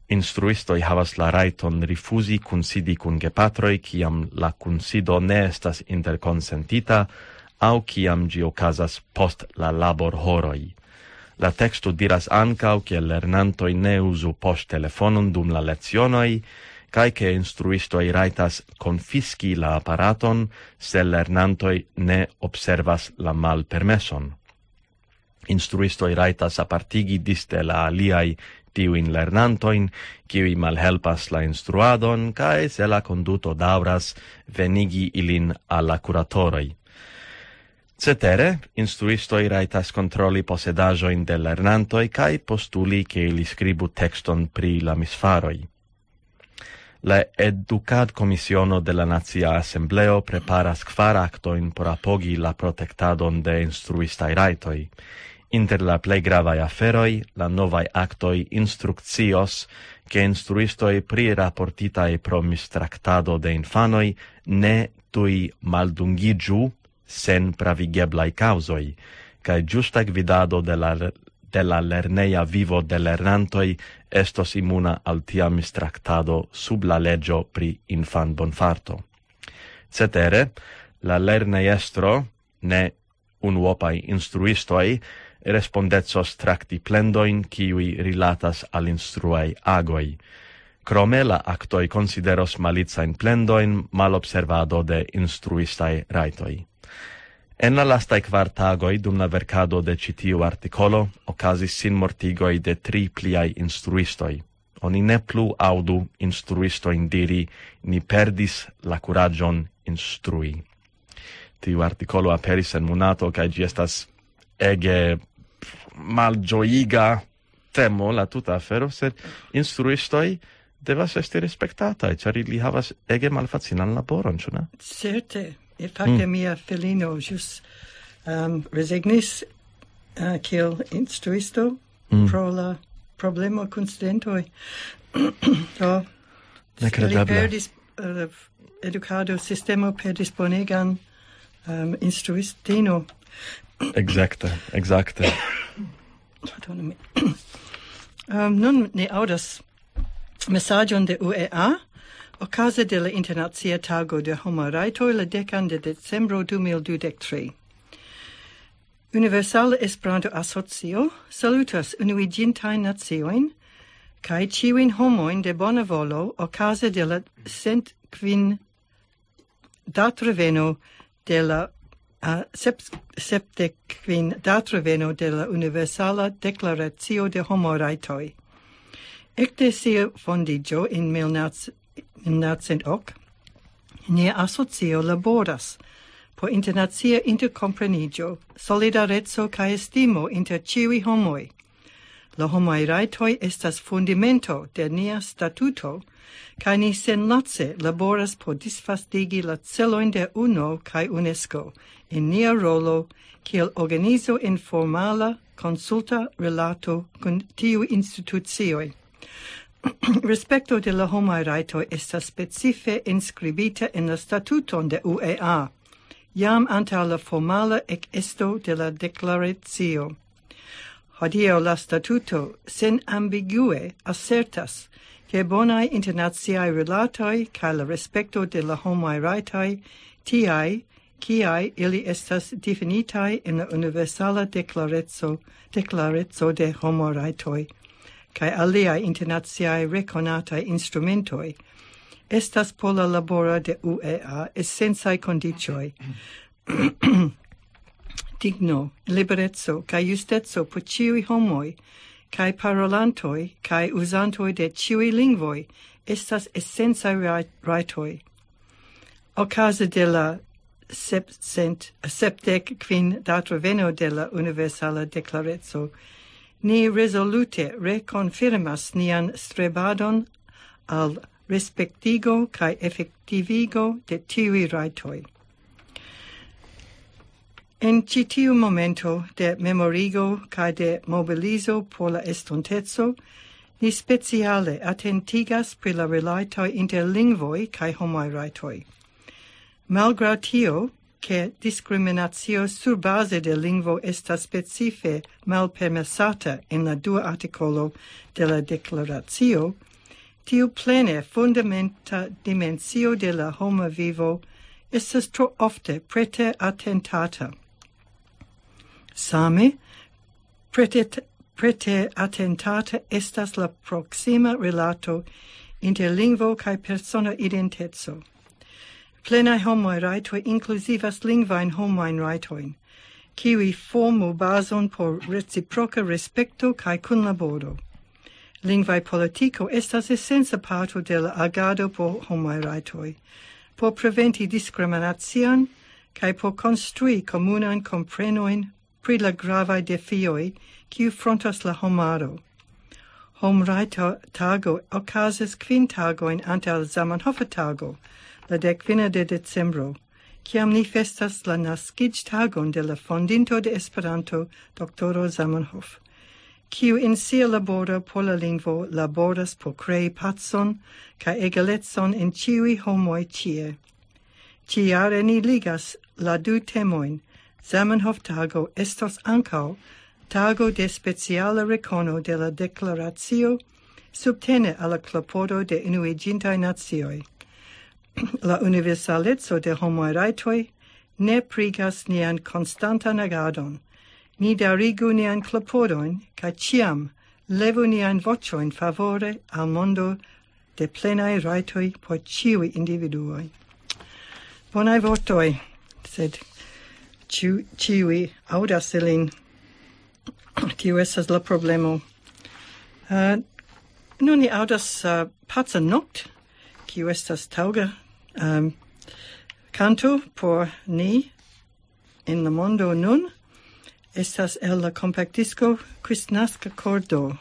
Instruistoj havas la rajton rifuzi kunsidi kun gepatroj, kiam la kunsido ne estas interkonsentita aŭ kiam ĝi okazas post la laborhoroj. La teksto diras ankaŭ, ke lernantoj ne uzu poŝtelefonon dum la lecionoj, kaj ke instruistoj rajtas konfiski la aparaton, se lernantoj ne observas la malpermeson. Instruistoj rajtas apartigi disde la aliaj tiujn lernantojn, kiuj malhelpas la instruadon, kaj se la konduto daŭras, venigi ilin al la kuratoroj. Cetere, instruistoj rajtas kontroli posedaĵojn de lernantoj kaj postuli, ke ili skribu tekston pri la misfaroj. La Edukadkomisiono de la Nacia Asembleo preparas kvar aktojn por apogi la protektadon de instruistaj rajtoj. Inter la plej gravaj aferoj, la novaj aktoj instrukcios, ke instruistoj pri raportitaj pro mistraktado de infanoj ne tuj maldungiĝu sen pravigeblaj kaŭzoj, kaj ĝusta gvidado de la, de la lerneja vivo de lernantoj estos imuna al tia mistraktado sub la leĝo pri infanbonfarto. Cetere, la lernejestro, ne unuopaj instruistoj, respondecos trakti plendojn, kiuj rilatas al instruaj agoj. Krome, la aktoj konsideros malicajn plendojn malobservado de instruistaj rajtoj. En la lastaj kvar tagoj dum la verkado de ĉi tiu artikolo okazis sinmortigoj de tri pliaj instruistoj. Oni ne plu aŭdu instruistojn diri: "Ni perdis la kuraĝon instrui." Tiu artikolo aperis en Monato, kaj ĝi estas ege malĝojiga temo, la tuta afero, sed instruistoj devas esti respektataj, ĉar ili havas ege malfacilan laboron, ĉu ne? Certe, e fakte mm. Mia filino ĵus um, rezignis uh, kiel instruisto mm. Pro la problemo kun studentoj. Do, nekredeble. Perdis, uh, edukado sistemo perdis bonegan um, instruistino. Exacte, exacte. Pardonu mi. um, nun ni aŭdas mesaĝon de U E A okaze de la Internacia Tago de Homaj Rajtoj la dekan de decembro du mil dudek tri. Universala Esperanto-Asocio salutas Unuiĝintajn Naciojn kaj ĉiujn homojn de bona volo okaze de la cent kvin datreveno de la uh, sepdek kvin datreveno de la Universala Deklaracio de Homorajtoj. Ekde sia fondiĝo en mil novcent ok, nia asocio laboras por internacia interkompreniĝo, solidareco kaj estimo inter ĉiuj homoj. La homaj rajtoj estas fundamento de nia statuto, kaj ni senlace laboras por disvastigi la celojn de UNO kaj UNESCO en nia rolo kiel organizo en formala konsulta rilato kun tiuj institucioj. Respekto de la homaj rajtoj estas specife enskribita en la statuton de U E A, jam antaŭ la formala ekesto de la deklaracio. Hodiaŭ la statuto senambigue asertas, ke bonaj internaciaj rilatoj kaj la respekto de la homaj rajtoj, tiaj kiaj ili estas difinitaj en la Universala Deklareco, Deklareco de Homorajtoj, kaj aliaj internaciaj rekonataj instrumentoj, estas por la laboro de U E A esencaj kondiĉoj. Digno, libereco kaj justeco por ĉiuj homoj, kaj parolantoj kaj uzantoj de ĉiuj lingvoj estas esencaj raj-, rajtoj. Okaze de la sepdek kvin datreveno de la Universala Deklareco, ni rezolute rekonfirmas nian strebadon al respektigo kaj efektivigo de tiuj rajtoj. En ĉi tiu momento de memorigo kaj de mobilizo por la estonteco, ni speciale atentigas pri la rilatoj inter lingvoj kaj homaj rajtoj. Malgraŭ tio, ke diskriminacio surbaze de lingvo estas specife malpermesata en la dua artikolo de la deklaracio, tiu plene fundamenta dimensio de la homa vivo estas tro ofte prete atentata. Same, prete, prete atentata estas la proksima rilato inter lingvo kaj persona identeco. Plenaj homaj rajtoj inkluzivas lingvajn homajn rajtojn, kiuj formu bazon por reciproka respekto kaj kunlaboro. Lingvaj politiko estas esenca parto de la agado por homaj rajtoj, por preventi diskriminacion kaj por konstrui komunajn komprenojn pri la gravaj defioj, kiu frontas la homaro. Homrajto-tago okazas kvin tagojn antaŭ Zamenhof-tago, la dek fina de decembro, kiam ni festas la naskiĝtagon de la fondinto de Esperanto, doktoro Zamenhof, kiu en sia laboro por la lingvo laboras por krei pacon kaj egalecon en ĉiuj homoj ĉie. Ĉijare ni ligas la du temojn. Zamenhof-tago estos ankaŭ tago de speciala rekono de la deklaracio subtene al la klopodo de Unuiĝintaj Nacioj. La universaleco de homaj rajtoj ne prigas nian konstantan agadon. Ni daŭrigu nian klopodojn kaj ĉiam levu nian voĉojn favore al mondo de plenaj rajtoj por ĉiuj individuoj. Bonaj vortoj, sed ĉiu-, ĉiuj aŭdas ilin. Tio estas la problemo. Uh, nun ni aŭdas uh, Paca Nokt, kiu estas taŭga um, kanto por ni en la mondo nun. Estas el la kompaktdisko Kristnaska Kordo.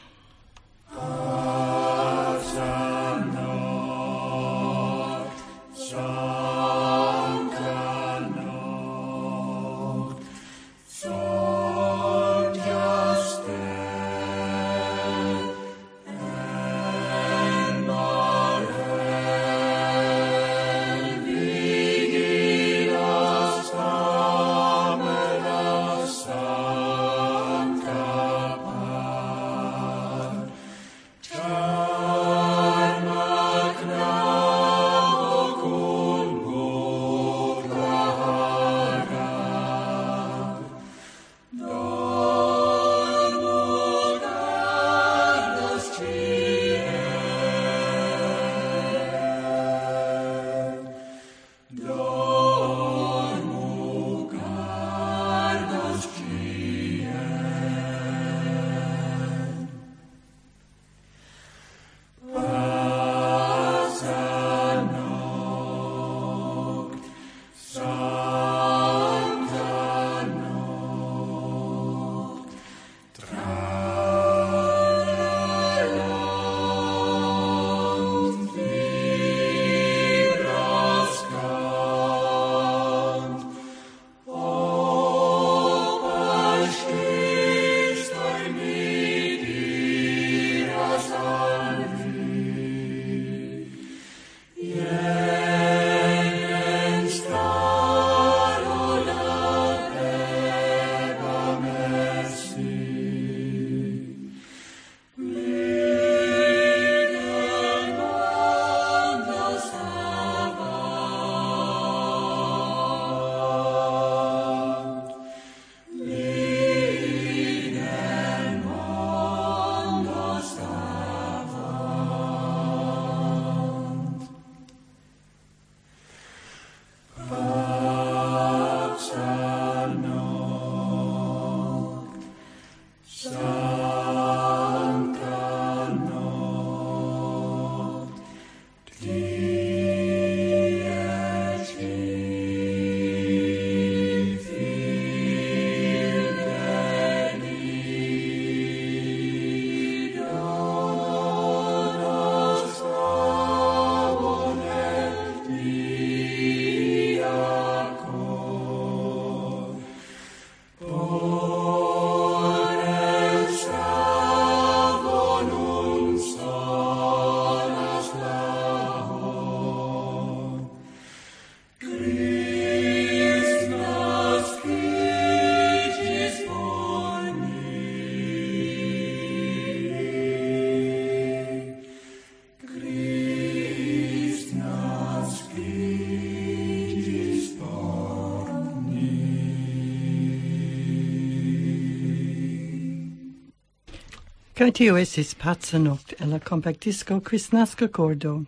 Kaj tio estis Paca Nokt en la kompaktdisko Kristnaska Kordo.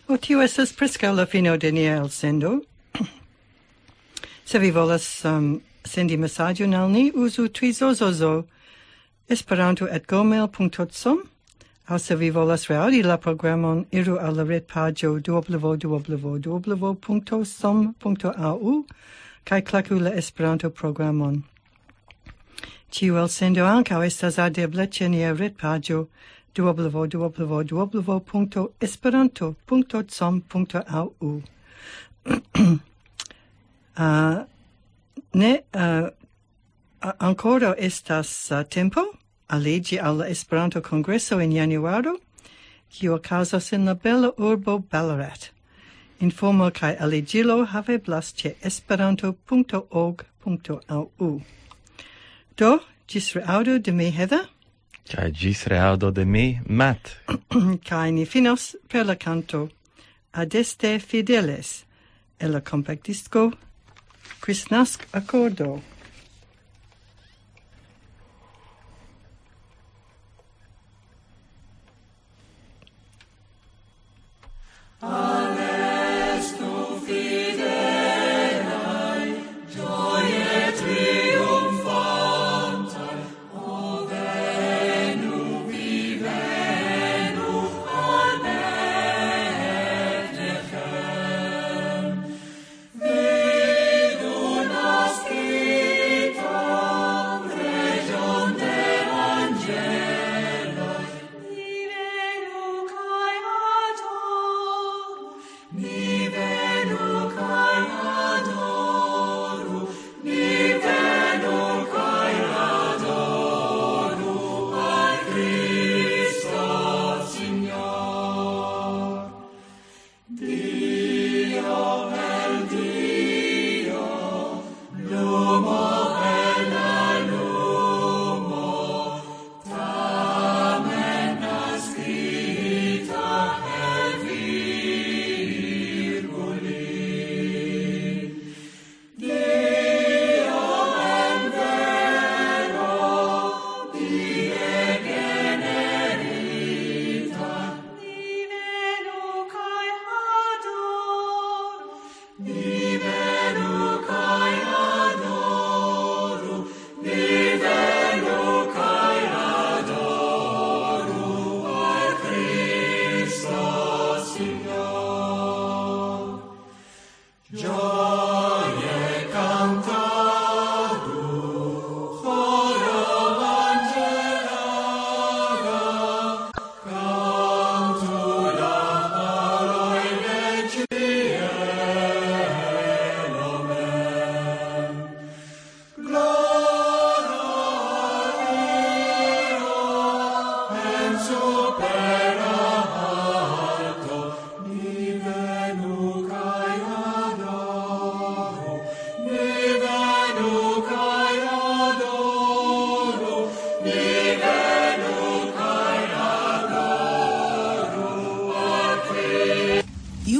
O, tio estas preskaŭ la fino de nia elsendo. Se vi volas um, sendi mesaĝon al ni, uzu trizozozo esperanto@gmail.com. Aŭ se vi volas reaŭdi la programon, iru al la retpaĝo www.som.au kaj klaku la Esperanto-programon. Ĉiu elsendo ankaŭ estas aŭdebla ĉe nia retpaĝo w w w dot esperanto dot com dot a u. Ah, ne, ah, a-, ankoraŭ estas, ah, tempo aliĝi al la Esperanto-kongreso en januaro, kiu okazas en la bela urbo Ballarat. Informo kaj aliĝilo haveblas ĉe esperanto dot org dot a u. Do, ĝis reaŭdo de mi, Heather. Kaj ĝis reaŭdo de mi, Matt. Kaj ni finos per la kanto Adeste Fideles, el la kompaktdisko Kristnask-akordo.